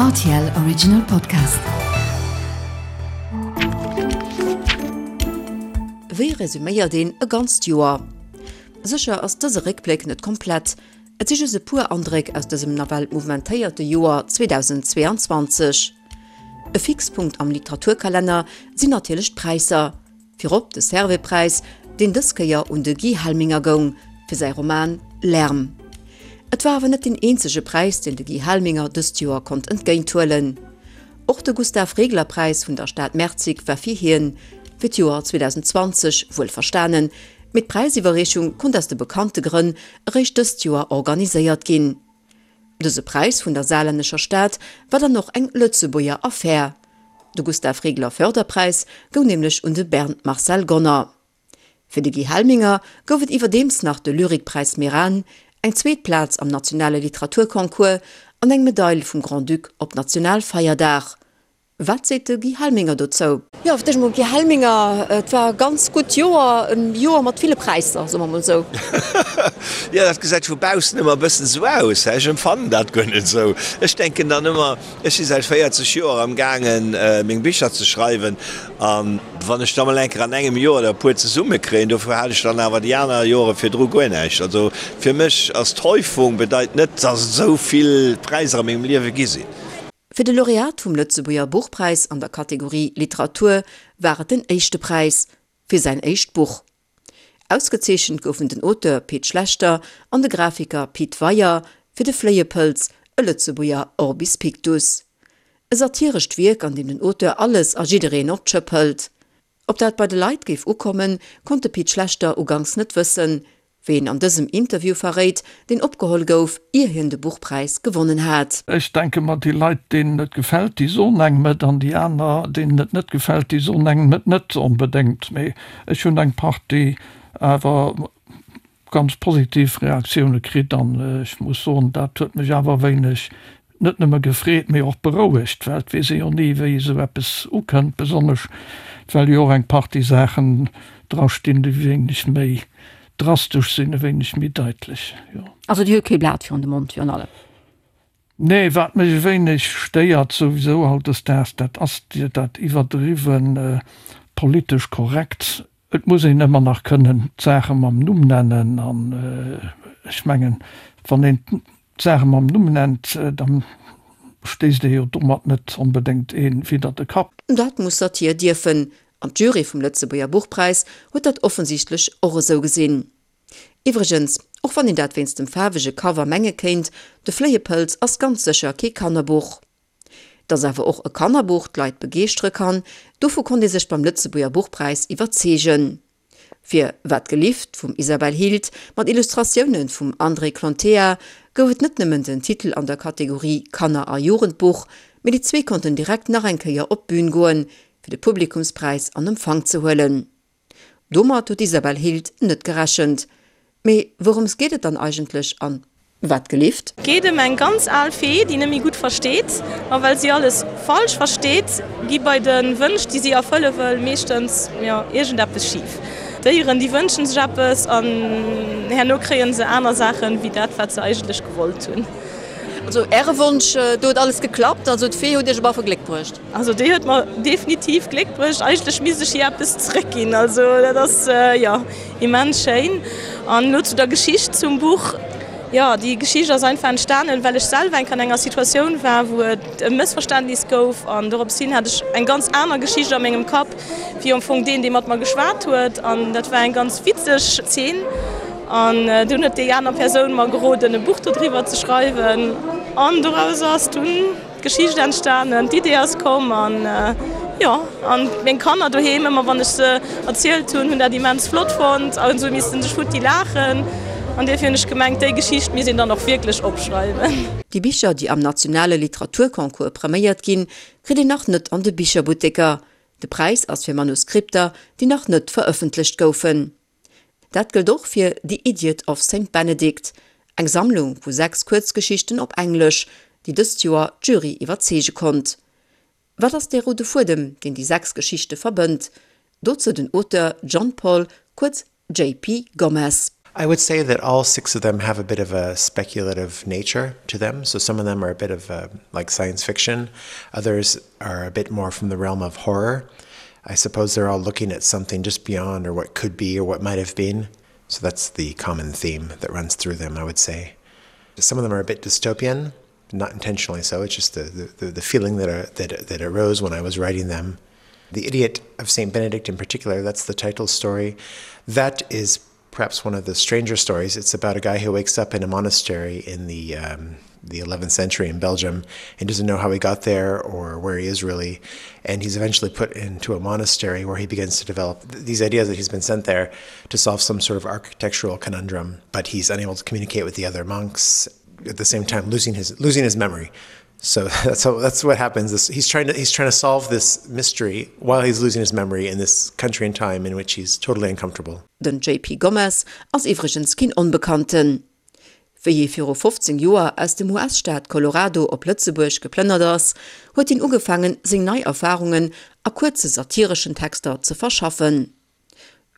Rtl Original Podcast. Wéi resuméiert een e ganzt Joer? Sécher ass dëse Réckbléck net komplett, et si just e puer Andréck aus dësem nawell mouvementéierte Joer 2022. E Fixpunkt am Literaturkalenner sinn natierlech d'Präisser. Virop de Servais-Präis, deen dës Kéier un de Guy Helminger goung, fir säi Roman Lärm. Et war awer net deen eenzege Präis, deen de Guy Helminger dëst Joer konnt entgéinthuelen. Och de Gustav-Regler-Präis vun der Stad Merzig war fir hien, fir d'Joer 2020 wuel verstanen, mee d'Präisiwwerreechung konnt aus de bekannte Grënn eréischt dëst Joer organiséiert ginn. Dëse Präis vun der saarlännescher Stad war dann och eng Lëtzebuerger Affär. De Gustav Regler Förderpräis goung nämlech un de Bernd Marcel Gonner. Fir de Guy Helminger gouf et iwwerdeems nach de Lyrikpräis Meran, eng zweet Plaz am nationale Literaturconcours an eng Medail vum Grand-Duc op Nationalfeierdag. Wat seet de Guy Helminger dozou? Jo, fir d'éischt emol Guy Helminger, et war e ganz gutt Joer, e Joer mat ville Präisser, soe mer emol esou. Jo, dat gesäit vu baussen ëmmer e bëssen esou aus, hä? Ech empfannen dat guer net esou. Ech denken dann ëmmer, ech si säit 40 Joer am gaangen, meng Bicher ze schreiwen, a wann ech da mol eng Kéier an engem Joer der e puer zesumme kréien, dofir hat ech dann awer déi aner Jore virdru guer näischt. Also fir mech ass d'Häufung bedeit net, datt et esou vill Präisser a mengem Liewe gi sinn. Fir de Laureat vum Lëtzebuerger Buchpräis an der Kategorie Literatur war et den éischte Präis fir säin éischt Buch. Ausgezeechent goufen den Auteur Pit Schlechter an de Grafiker Pit Weyer fir De Fléiepëlz, e Lëtzebuerger Orbis Pictus. E satirescht Wierk, an deem den Auteur alles a jiddereen op d'Schëpp hëlt. Ob dat bei de Leit géif ukommen, konnt de Pit Schlechter uganks net wëssen, wéi en an dësem Interview verréit, deen opgeholl gouf, ier hien de Buchpräis gewonnen hat. Ech denke mer, déi Leit, deenen et gefält, déi soen engem et, an déi aner, deenen et net gefält, déi soen engem et net onbedéngt. Mee ech hunn eng Partie awer ganz positiv Reaktioune kritt an ech muss soen, dat huet mech awer e wéineg net nëmme gefreet, mee och berouegt, well et weess ee jo ni, wéi esou eppes ukënnt, besonnesch well jo och eng Partie Saachen dra stinn, déi e wéineg méi drastesch sinn, e wéineg méi daitlech, jo. Also Dir huet kee Blat virun de Mond virun allem? Nee, wat mech e wéineg stéiert souwisou hautdesdaags, dat ass dat iwwerdriwwen politesch korrekt. Et muss een ëmmer nach kënnen d'Saache mam Numm nennen. An ech mengen, wann een d'Saache mam Numm nennt, da stéisst ee jo domat net onbedéngt ee widder de Kapp. Dat muss Satir dierfen, an d'Jury vum Lëtzebuerger Buchpräis huet dat offensichtlech och esou gesinn. Iwwregens, och wann een dat wéinst dem faarwege Cover menge kéint, De Fléiepëlz ass ganz sécher kee Kannerbuch. Dass awer och e Kannerbuch d'Leit begeeschtere kann, dovu konnt ee sech beim Lëtzebuerger Buchpräis iwwerzeegen. Fir Wat gelift vum Isabelle Hild mat Illustratioune vum André Clontea gouf et net nëmmen den Titel an der Kategorie Kanner a Jugendbuch, mee déi zwee konnten direkt nach eng Kéier op d'Bün goen, fir de Publikumspräis an Empfang ze huelen. Domat huet d'Isabel Hild net gerechent. Mee wourëms geet et dann eigentlech an Wat gelift? Et geet ëm eng ganz al Fee, déi net méi gutt versteet. A well si alles falsch versteet, gi bei de Wënsch, déi si erfëlle wëll, meeschtens, jo, iergendeppes schif. Déieren, déi wënschen sech eppes an herno kréie se aner Saachen, wéi dat, wat se eigentlech gewollt hunn. Also Äre Wonsch, do huet alles geklappt, also d'Fee huet Iech op alle Fall Gléck bruecht? Also déi huet mer definitiv Gléck bruecht. Eigentlech misst ech hir eppes zeréckginn. Also dat ass, jo, immens schéin. An elo zu der Geschicht zum Buch. Jo, déi Geschicht ass einfach entstanen, well ech selwer eng Kéier an enger Situatioun war, wou et e Mëssverständnis gouf. An dorops hin hat ech eng ganz aner Geschicht a mengem Kapp, wéi am Fong deen, dee mat mer geschwat huet. An dat war eng ganz witzeg Zeen. An dunn huet déi aner Persoun mer geroden, e Buch dodriwwer ze schreiwen. An doraus ass dunn. D'Geschicht entstanen, d'Idee ass komm an jo, an meng Kanner doheem, ëmmer wann ech se erzielt hunn, hunn dat immens flott fonnt a se hu missten sech futti laachen an duerfir hunn ech gemengt, déi Geschicht misst een dann och wierklech opschreiwen. Déi Bicher, déi am nationale Literaturconcours preméiert ginn, kritt een nach net an de Bicherbutteker. De Präis ass fir Manuskripter, déi nach net verëffentlecht goufen. Dat gëllt och fir The Idiot of Saint Benedict, eng Sammlung vu 6 Kuerzgeschichten op Englesch, déi dëst Joer d'Jury iwwerzeege konnt. Wat ass dee roude Fuedem, deen déi 6 Geschichte verbënnt? Dozou den Auteur John Paul, kuerz JP. Gomez. I would say that all six of them have a bit of a speculative nature to them. So some of them are a bit of a, like science fiction. Others are a bit more from the realm of horror. I suppose they're all looking at something just beyond or what could be or what might have been. So that's the common theme that runs through them, I would say. Some of them are a bit dystopian, not intentionally so. It's just the, the, the feeling that, uh, that, that arose when I was writing them. The Idiot of St. Benedict in particular, that's the title story. That is perhaps one of the stranger stories. It's about a guy who wakes up in a monastery in the um, the 11th century in Belgium and doesn't know how he got there or where he is really. And he's eventually put into a monastery where he begins to develop th these ideas that he's been sent there to solve some sort of architectural conundrum, but he's unable to communicate with the other monks at the same time losing his losing his memory. So that's how, that's what happens. This, he's trying to he's trying to solve this mystery while he's losing his memory in this country and time in which he's totally uncomfortable. Den JP Gomez ass iwwregens keen Onbekannten. Wéi hie viru 15 Joer aus dem US-Staat Colorado op Lëtzebuerg geplënnert ass, huet hien ugefaangen, seng nei Erfarungen a kuerze satireschen Texter ze verschaffen.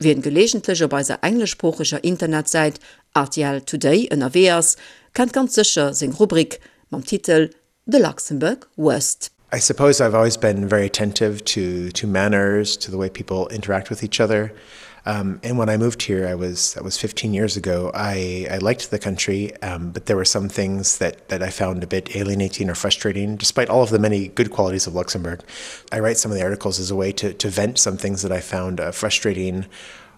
Wien gelegentlech op eiser engleschsproocheger Internetsäit rtl Today ënnerwee ass, kennt ganz sécher seng Rubrik mam Titel The Luxembourg Worst. I suppose I've always been very attentive to to manners, to the way people interact with each other. Um, and when I moved here, I was that was 15 years ago. I, I liked the country, um, but there were some things that, that I found a bit alienating or frustrating, despite all of the many good qualities of Luxembourg. I write some of the articles as a way to, to vent some things that I found uh, frustrating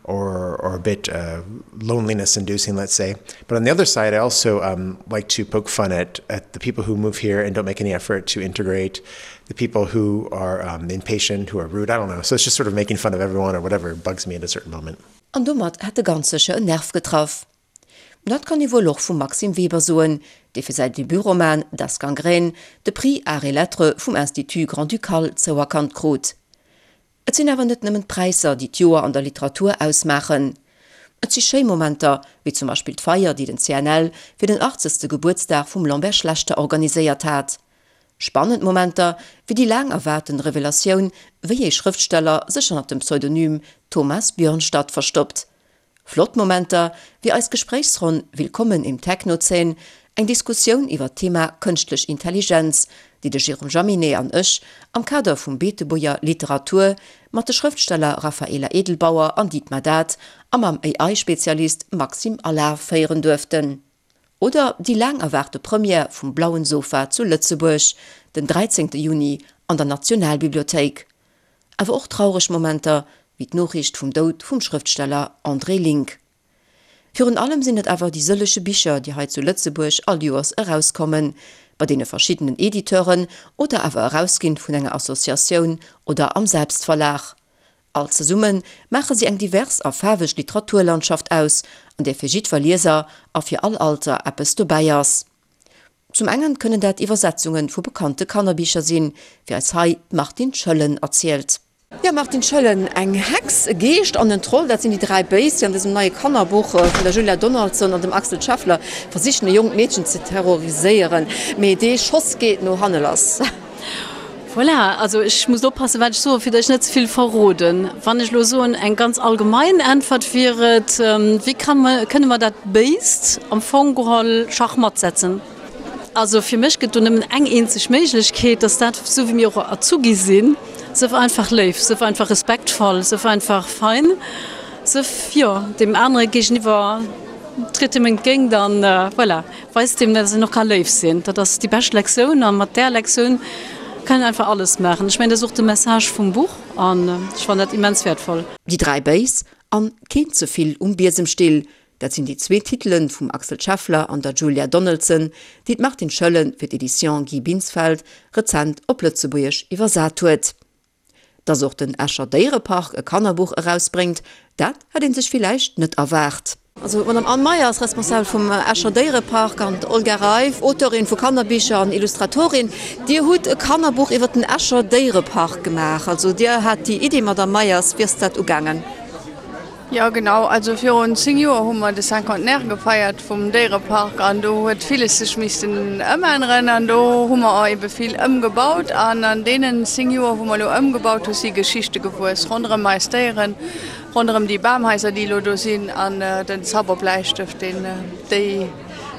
or, or a bit uh, loneliness inducing, let's say. But on the other side, I also um, like to poke fun at, at the people who move here and don't make any effort to integrate, the people who are um, impatient, who are rude, I don't know. So it's just sort of making fun of everyone or whatever bugs me at a certain moment. An domat hätt e ganz sécher en Nerv getraff. Dat kann ee wuel och vum Maxime Weber soen, dee fir säi Debutroman Das Gangrène de Prix Arts et Lettres vum Institut Grand-Ducal zouerkannt krut. Et sinn awer net nëmmen d'Präisser, déi d'Joer an der Literatur ausmaachen. Et si schéi Momenter, wéi zum Beispill d'Feier, déi den CNL fir den achtzegste Gebuertsdag vum Lambert Schlechter organiséiert hat. Spannend Momenter, wéi déi laang erwaarten Revelatioun, wéi ee Schrëftsteller sech hannert dem Pseudonym Thomas Björnstad verstoppt. Flott Momenter, wéi eis Gespréichsronn Willkommen im Technozän, eng Diskussioun iwwer d'Thema Kënschtlech Intelligenz, déi de Jérôme Jaminet an ech am Kader vum Beetebuerger Literatur mat de Schrëftsteller Raphaela Edelbauer an Dietmar Dath a mam AI-Spezialist Maxime Allard féieren duerften. Oder déi laang erwaarte Première vum Blauen Sofa zu Lëtzebuerg den 13 Juni an der Nationalbibliothéik. Awer och traureg Momenter, wéi d'Noriicht vum Doud vum Schrëftsteller André Link. Virun allem sinn et awer déi sëllege Bicher, déi hei zu Lëtzebuerg all Joers erauskommen, bei deene verschiddenen Editeuren oder awer erausginn vun enger Associatioun oder am Selbstverlag. All zesumme maache si eng divers a faarweg Literaturlandschaft aus, an där fir jiddwer Lieser a fir all Alter eppes dobäi ass. Zum engen kënnen dat Iwwersetzunge vu bekannte Kannerbicher sinn, wéi eis hei d'Martine Schëllen erzielt. Jo, Martine Schëllen, eng Hex, e Geescht an en Troll, dat sinn déi 3 Béis, déi an dësem neie Kannerbuch vun der Julia Donaldson an dem Axel Scheffler versichen e jonkt Meedchen ze terroriséieren. Mee dee Schoss geet no hanne lass. Voilà, also ech muss oppassen, wat ech soen, fir datt ech net ze vill verroden. Wann ech elo soen, eng ganz allgemein Äntwert wier et, Wéi kann mer, kënne mer dat Béist am Fong geholl schachmatt setzen? Also fir mech gëtt do nëmmen eng eenzeg Méiglechkeet, dass dat, esou wéi mir och erzu gi sinn, Sëff einfach léif, sëff einfach respektvoll, sëff einfach fein, sëff, jo, deem anere géigeniwwer, tritt him entgéint an voilà. Weist deem, dass een och ka léif sinn. Dat ass déi bescht Lektioun a mat där Lektioun kann een einfach alles maachen. Ech mengen, dat ass och de Message vum Buch an ech fannen dat immens wäertvoll. Déi 3 Béis an Keen ze vill um Biesemstill, dat sinn déi zwee Titele vum Axel Scheffler an der Julia Donaldson, déi d'Martine Schoellen fir d'Editions Guy Binsfeld rezent op Lëtzebuergesch iwwersat huet. Dass och den Escher Déierepark e Kannerbuch erausbréngt, dat hätt ee sech villäicht net erwaart. Also d'Madame Anne Meyer ass Responsabel vum Escher Déierepark an d'Olga Reiff, Auteurin vu Kannerbicher an Illustratorin. Dir hutt e Kannerbuch iwwer den Escher Déierepark gemaach. Also Dir hat déi Iddi, Madame Meyers. Wéi ass dat ugaangen? Jo genau, also virun 10 Joer hu mer de Cinquantenaire gefeiert vum Déierepark an do huet villes sech missten ëmänneren an do hu mer ebe vill ëmgebaut an an deenen 10 Joer wou mer elo ëmgebaut hu si Geschichte gewuess ronderëm eis Déieren. Ronderëm déi Bamhaiser, déi elo do sinn, an den Zauberbläistëft, deen déi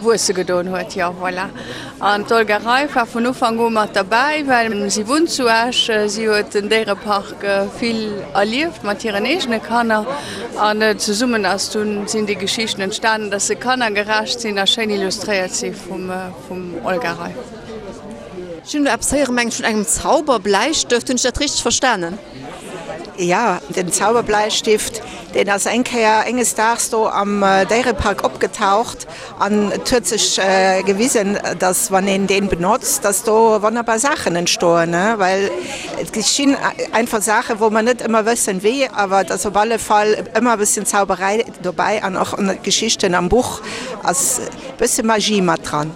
wuesse gedoen huet. Jo, voilà. An d'Olga Reif war vun Ufank u mat derbäi, well si wunnt zu Esch. Si huet den Déierepark vill erlieft mat hiren eegene Kanner. An zesummen ass dunn, sinn déi Geschichten entstanen, dass se kannergerecht sinn a schéin illustréiert si vum Olga Reif. Ech hunn elo eppes héieren, mengen ech, vun engem Zauberbläistëft. Hunn ech dat richteg verstanen? Jo, den Zauberbläistift, deen ass eng Kéier enges Daags do am Déierepark opgetaucht an et huet sech gewisen, dass wann een deen benotzt, dass do wonnerbar Saachen entstoen, well et geschinn einfach Saachen, wou mer net ëmmer wëssen wéi, awer et ass op alle Fall ëmmer e bësschen Zauberei dobäi an och an de Geschichten am Buch ass e bësse Magie mat dran.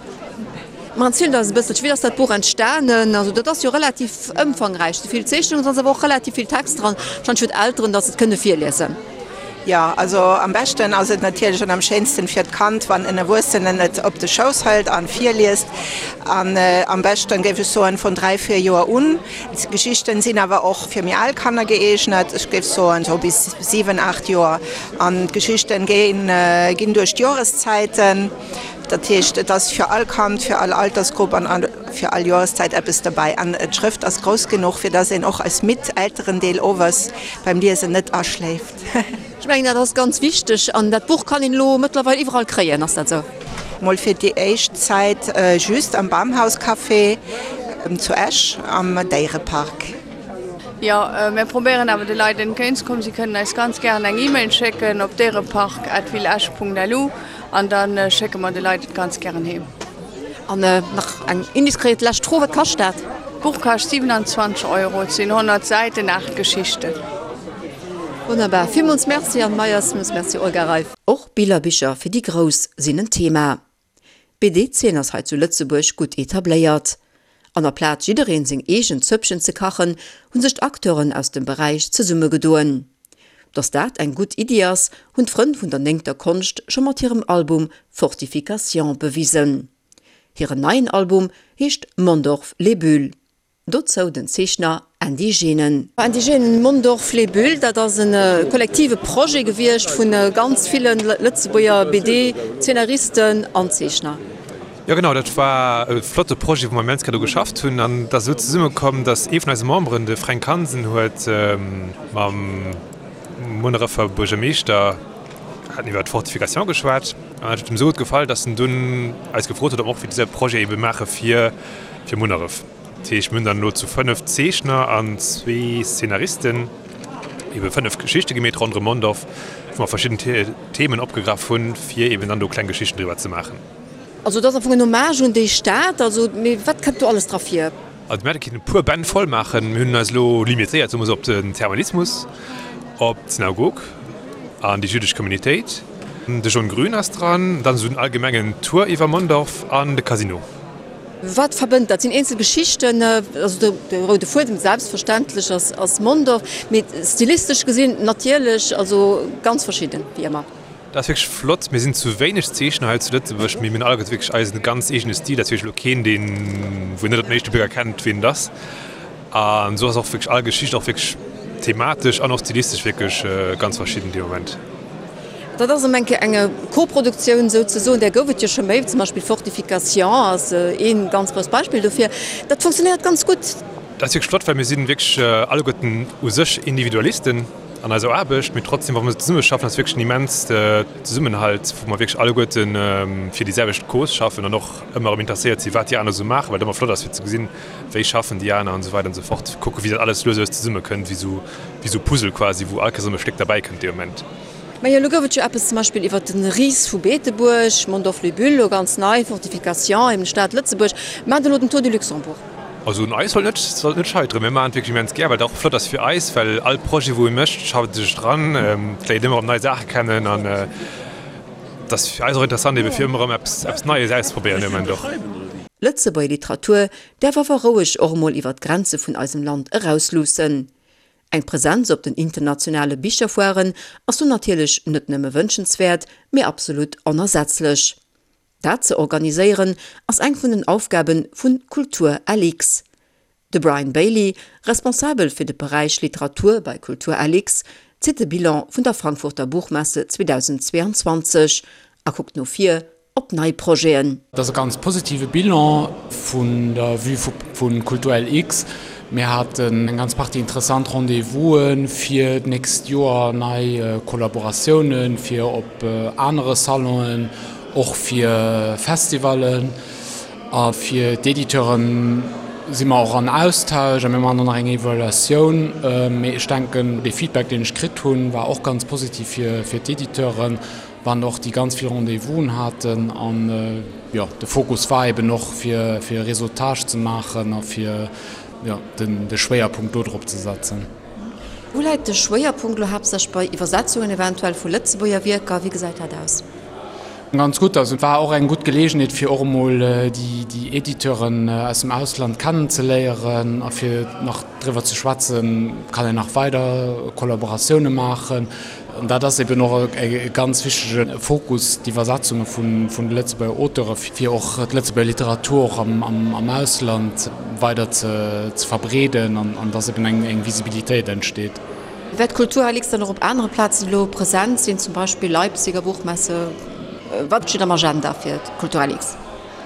Ma erzielt eis e bësselche, wéi ass dat Buch entstanen? Also dat ass jo relativ ëmfangräich, sou vill Zeechnungen, et ass awer och relativ vill Text dran, wahrscheinlech fir d'Elteren, datt se et kënne virliesen. Jo, also am beschten ass et natierlech an am schéinsten fir d'Kand, wann en Erwuessenen et op de Schouss hëlt an virliest. An am beschten, géif ech soen, vun 3, 4 Joer un. D'Geschichten sinn awer och fir méi al Kanner gëeegnet, ech géif soen sou bis 7, 8 Joer. An d'Geschichten ginn duerch d'Joreszäiten. Dat heescht, et ass fir all Kand, fir all Altersgrupp an fir all Joreszäit eppes dobäi. An d'Schrëft ass grouss genuch, fir dass een och als midd Elterendeel owes beim Liesen net aschléift. Ech mengen, dat ass ganz wichteg. An dat Buch kann een elo mëttlerweil iwwerall kréien, ass dat esou? Mol fir déi éischt Zäit just am Bamhauscafé zu Esch am Déierepark. Jo, mir probéieren awer de Leit entgéintzekommen. Si kënnen eis ganz gären eng E-Mail schécken op déierepark@villeesch.lu. An da schécke mer de Leit et ganz gären heem. An nach eng indiskret lescht Fro, Wat kascht dat? D'Buch kascht 27 Euro, et sinn 100 Säiten, 8 Geschichten. Wonnerbar, villmools Merci Anne Meyers, villmools Merci Olga Reiff. Och Billerbicher fir déi Grouss sinn en Thema. D'BD-Zeen ass hei zu Lëtzebuerg gutt etabléiert. An aplaz jiddereen seng eegen Zöppchen ze kachen, hu sech d'Acteuren aus dem Beräich zesummegedoen. Datt dat eng gutt Iddi ass, hunn d'Frënn vun der néngter Konscht scho mat hirem Album Fortification bewisen. Hiren neien Album heescht Mondorf les Bulles. Dozou den Zeechner Andy Genen. Andy Genen, Mondorf les Bulles, dat ass e kollektive Projet gewiescht vu ganz ville Lëtzebuerger BD-Zeenaristen an Zeechner. Jo genau, dat war e flotte Projet, wou mer immens grad u geschafft hunn. An et ass esou zesummekomm, datt ee vun eise Memberen, de Fränk Hansen, huet mam Munnerefer Buergermeeschter haten iwwer d'Fortification geschwat. An dat huet him esou gutt gefall, datt en dunn eis gefrot huet, ob mer och dëse Projet ebe maache fir fir Munneref. Dat heescht, mir hunn dann elo zu 5 Zeechner an zwee Szenaristen ebe 5 Geschichte gemeet ronderëm Mondorf, wou mer verschidden Themen opgegraff hunn, fir eben dann do kleng Geschichten driwwer ze maachen. Also et ass am Fong en Hommage un déi Stad. Also, mee wat kënnt do alles dra vir? Also mir hätte kinnen e puer Bänn voll maachen. Mir hunn eis elo limitéiert, soe mer esou, op den Thermalismus, op d'Synagog an déi jüddesch Communitéit. De John Grün ass dran, dann esou den allgemengen Tour iwwer Mondorf an de Casino. Wat verbënnt dat? Sinn eenzel Geschichten, also de roude Fuedem selbstverständlech ass Mondorf, mee stilistesch gesinn natierlech, also ganz verschidden, wéi ëmmer. Dat ass wierklech flott. Mir sinn zu wéineg Zeechner hei zu Lëtzebuerg, mee mir hunn alleguerte wierklech eisen ganz eegene Stil. Dat ass wierklech elo keen, deen, wou een net op den éischte Bléck erkennt, wien et ass. An esou ass och wierklech all Geschicht och wierklech thematesch an och stilistesch wierklech ganz verschidden dee Moment. Dat ass erëm eng Kéier eng Koproduktioun souzesoen, där gouf et jo scho méi, zum Beispill Fortification ass ee ganz grousst Beispill dofir. Dat funktionéiert ganz gutt. Dat ass wierklech flott, well mir si wierklech alleguerten u sech Individualisten an eiser Aarbecht, mee trotzdem, wa mer zesummeschaffen, ass wierklech en immens Zesummenhalt, wou mer wierklech alleguerte fir déi selwecht Cause schaffen an och ëmmer erëm interesséiert sinn, wat déi aner esou maachen, well et ëmmer flott ass fir ze gesinn, wéi schaffen déi aner an esou weider an esou fort, kucken, wéi dat alles lues a lues zesummekënnt, wéi esou, wéi esou Puzzle quasi, wou all Kéiers erëm e Stéck derbäikënnt dee Moment. Majo, elo gouf et jo eppes zum Beispill iwwer de Ris vu Beetebuerg, Mondorf-les-Bulles, elo ganz nei, Fortification, eben d'Stad Lëtzebuerg, maacht elo den Tour du Luxembourg. Also un eis sollt net sollt net scheiteren. Mir maachen et wierklech immens gär, well et och flott ass fir eis, well all Projet wou ee mécht, schafft ee sech dran, et léiert ëmmer erëm nei Saache kennen an et ass fir eis och interessant ebe fir ëmmer erëm eppes eppes Neies auszeprobéieren dee Moment och. Lëtzebuerger Literatur däerf awer roueg och emol iwwer d'Grenze vun eisem Land erausluussen. Eng Presenz op den internationale Bicherfoiren ass do natierlech net nëmme wënschenswäert, mee absolut onersetzlech. Dat ze organiséieren ass eng vun den Aufgabe vu Kultur LX. De Brian Bailey, Responsabel fir de Beräich Literatur bei Kultur LX. zitt de Bilan vun der Frankfurter Buchmesse 2022 a kuckt no vir op nei Projeten. Et ass e ganz positive Bilan vun der Vue vu Kulturlx. Mir haten eng ganz Partie interessant Rendez-vouse fir d'nächst Joer, nei Kollaboratiounen fir op anere Salonen, och fir Festivallen. A fir d'Editeure si mer och an Austausch a mir maachen och nach eng Evaluatioun. Mee ech denken, dee Feedback, deen ech kritt hunn, war och ganz positiv fir d'Editeuren, wann och déi ganz vill Rendez-vousen haten. An jo, de Fokus war eben och, fir e Réseautage ze maachen a fir jo, de Schwéierpunkt do drop ze setzen. Wou läit de Schwéierpunkt elo haaptsächlech bei Iwwersetzungen eventuell vu Lëtzebuerger Wierker? Wéi gesäit dat aus? Ganz gutt. Also et war och eng gutt Geleegenheet fir och emol déi Editeuren aus dem Ausland kennenzeléieren a fir nach driwwer ze schwätzen, kann een nach weider Kollaboratioune maachen. An dat ass eben och e ganz wichtege Fokus, d'Iwwersetzunge vun de Lëtzebuerger Auteure fir och d'Lëtzebuerger Literatur och am Ausland weider ze verbreeden an dass eben eng Visibilitéit entsteet. Wäert d'Kulturalix dann och op anere Plazen elo present sinn, zum Beispill Leipziger Buchmesse? Wat steet am Agenda fir d'Kulturalix?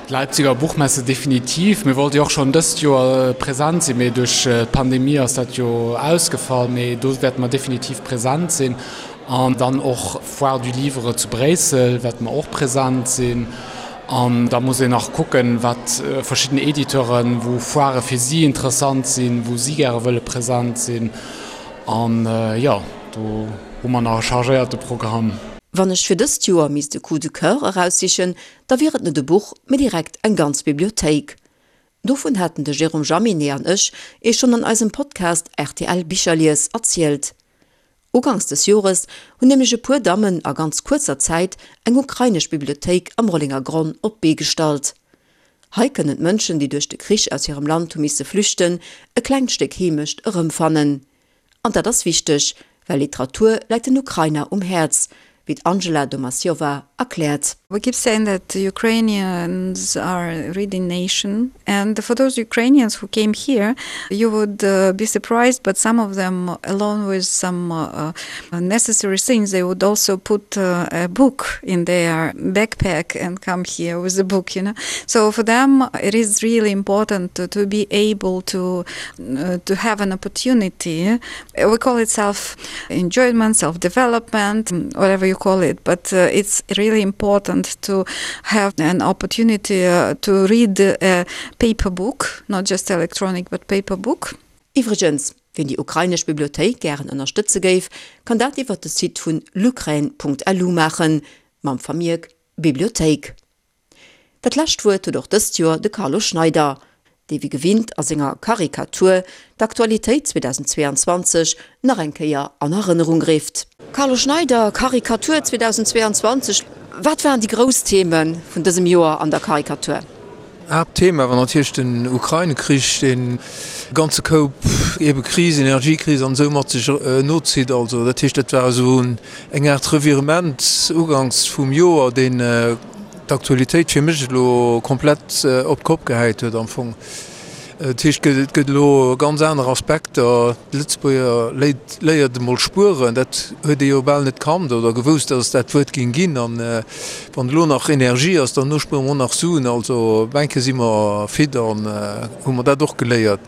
D'Leipziger Buchmesse definitiv. Mir wollte jo och schonn dëst Joer present sinn, mee duerch d'Pandemie ass dat jo ausgefall. Mee do wäerte mer definitiv present sinn. An dann och Foire du Livre zu Bréissel wäerte mer och present sinn. An da muss een nach kucken, wat verschidden Editeuren, wou Foirë fir si interessant sinn, wou si gäre wëlle present sinn. An jo, do hu mer nach e chargéierte Programm. Wann ech fir dëst Joer misst e Coup de coeur eraussichen, da wier et net e Buch, mee direkt eng ganz Bibliothéik. Dovun haten de Jérôme Jaminet an ech Iech schonn an eisem Podcast rtl Bicherlies erzielt. Uganks des Jores hunn nämlech e puer Dammen a ganz kuerzer Zäit eng ukrainesch Bibliothéik am Rollenger Gronn op d'Bee gestallt. Hei kënnen d'Mënschen, déi duerch de Krich aus hirem Land hu misse flüchten, e klengt Stéck Heemecht erëmfannen. An dat ass wichteg, well Literatur läit den Ukrainer um Häerz, wéi d'Angela Domasjova erkläert. We keep saying that Ukrainians are a reading nation and for those Ukrainians who came here you would be surprised but some of them along with some necessary things they would also put a book in their backpack and come here with a book you know so for them it is really important to, to be able to uh, to have an opportunity we call it self enjoyment self development whatever you call it but uh, it's really important to have an opportunity uh, to read a paper book not just electronic but paper book Iwwregens, wien déi ukrainesch Bibliothéik gären ënnerstëtze géif, kann dat iwwert de Site vun lukraine.lu maachen, mam Vermierk Bibliothéik. Dat lescht Wuert huet och dëst Joer de Carlo Schneider, dee wéi gewinnt a senger Karikatur d'Aktualitéit 2022 nach eng Kéier an Erënnerung rifft. Carlo Schneider, Karikatur 2022, Wat waren déi grouss Theme vun dësem Joer an der Karikatur? Haaptthema war natierlech den Ukraine-Krich, deen e ganze Koup ebe Krisen, Energiekris an esou mat sech nozitt. Also dat heescht, dat war esou eng Aart Revirement uganks vum Joer, deen d'Aktualitéit fir mech elo komplett op d'Kopp gehäit huet am Fong. Dat heescht, et gëtt elo ganz aner Aspekter. De Lëtzebuerger léit, léiert emol spueren, dat huet ee jo bal net kannt oder gewousst, datt et dat Wuert géing ginn. An wann elo nach Energie ass, dann spuere mer och nach Suen. Also enke si mer fit an hu mer dat och geléiert.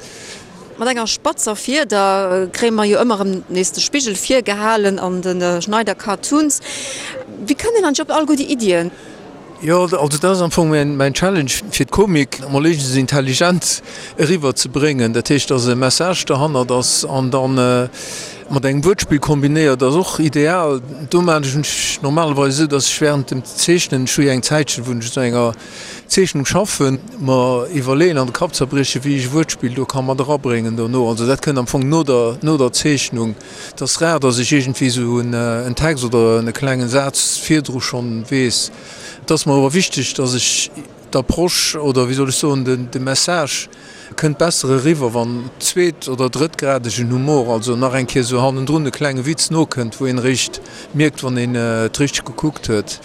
Mat enger spatzer Fieder kréie mer jo ëmmer erëm nees de Spigel virgehalen an de Schneider Cartoons. Wéi kënnt een eigentlech op all guer déi Iddien? Jo, also dat ass am Fong mäin Challenge, fir d'Komik emol éischtens intelligent eriwwer ze bréngen. Dat heescht, dass e Message derhannert ass an da mat engem Wuertspill kombinéiert ass och ideal. Do maachen ech normalerweis esou, dass ech während dem Zeechnen, ech hu jo eng Zäitchen, wou ech un enger Zeechnung schaffen, mer iwwerleeën an de Kapp zerbriechen, wéi ech e Wuertspill do ka mat erabréngen dono. Also dat kënnt am Fong no der, no der Zeechnung. Et ass rar, dass ech iergendwéi esou en Text oder e klengen Saz virdru schonn weess. Et ass mer awer wichteg, dass ech d'Approche oder, wéi soll ech soen, de Message kënnt besser eriwwer, wann zweet oder drëttgradegen Humor, also nach eng Kéier esou hannendrun e klenge Witz nokënnt, wou een eréischt mierkt, wann een et richteg gekuckt huet.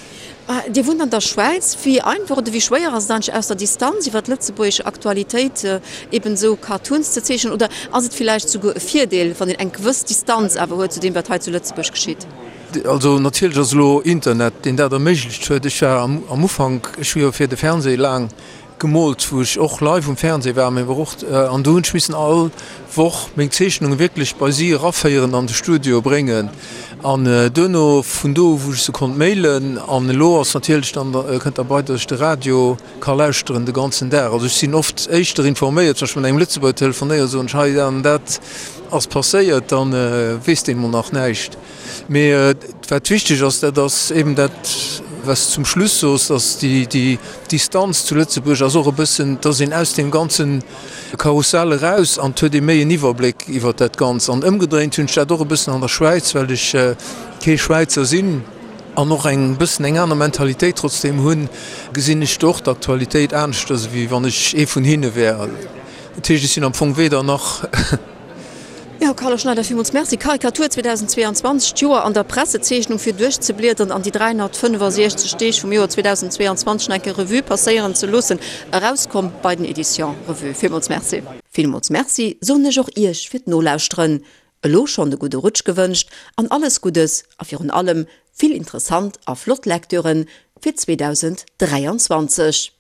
Dir wunnt an der Schwäiz. Wéi einfach oder wéi schwéier ass et eigentlech aus der Distanz iwwer d'lëtzebuergesch Aktualitéit eben esou Cartoons ze zeechnen? Oder ass et villäicht souguer e Virdeel, wann een eng gewëss Distanz awer huet zu deem, wat hei zu Lëtzebuerg geschitt? Also natierlech ass elo Internet, deen dat erméiglecht huet. Ech war am Ufank, ech hu jo fir de Fernseh laang gemoolt, wou ech och live um Fernseh war, mee och, an do hunn ech missen all Woch meng Zeechnunge wierklech bei si eraféieren, an de Studio bréngen an duerno vun do u wou ech se konnt mailen. An elo ass natierlech dann, kënnt derbei, datt ech de Radio ka lauschteren de ganzen Dag. Also ech sinn oft éischter informéiert, wann ech mat engem Lëtzebuerger telefonéieren, soen ech, hei dat an dat ass passéiert, da weess deen emol nach näischt. Mee wat wichteg ass, dat ass eben dat, wat s de zum Schluss soos, dass déi Distanz zu Lëtzebuerg ass och e bëssen, dass een aus deem ganze Karussell eraus an et huet ee méi en Iwwerbléck iwwert dat Ganzt. An ëmgedréint hunn ech dat och e bëssen an der Schwäiz, well ech kee Schwäizer sinn an och eng bëssen eng aner Mentalitéit trotzdeem hunn, gesinn ech do och d'Aktualitéit aneschters, ewéi wann ech ee vun hinne wär. Dat heescht, ech sinn am Fong weder nach. Jo, Carlo Schneider, villmools Merci. Karikatur 2022, d'Joer an der Pressezeechnung fir duerchzebliederen an déi 365 Deeg vum Joer 2022 nach eng Kéier Revue passéieren ze loossen, erauskomm bei den Editions Revue. Villmools Merci. Villmools Merci soen ech och Iech fir d'Nolauschteren. Elo schonn e gudde Rutsch gewënscht an alles Guddes a virun allem vill interessant a flott Lecturen fir 2023.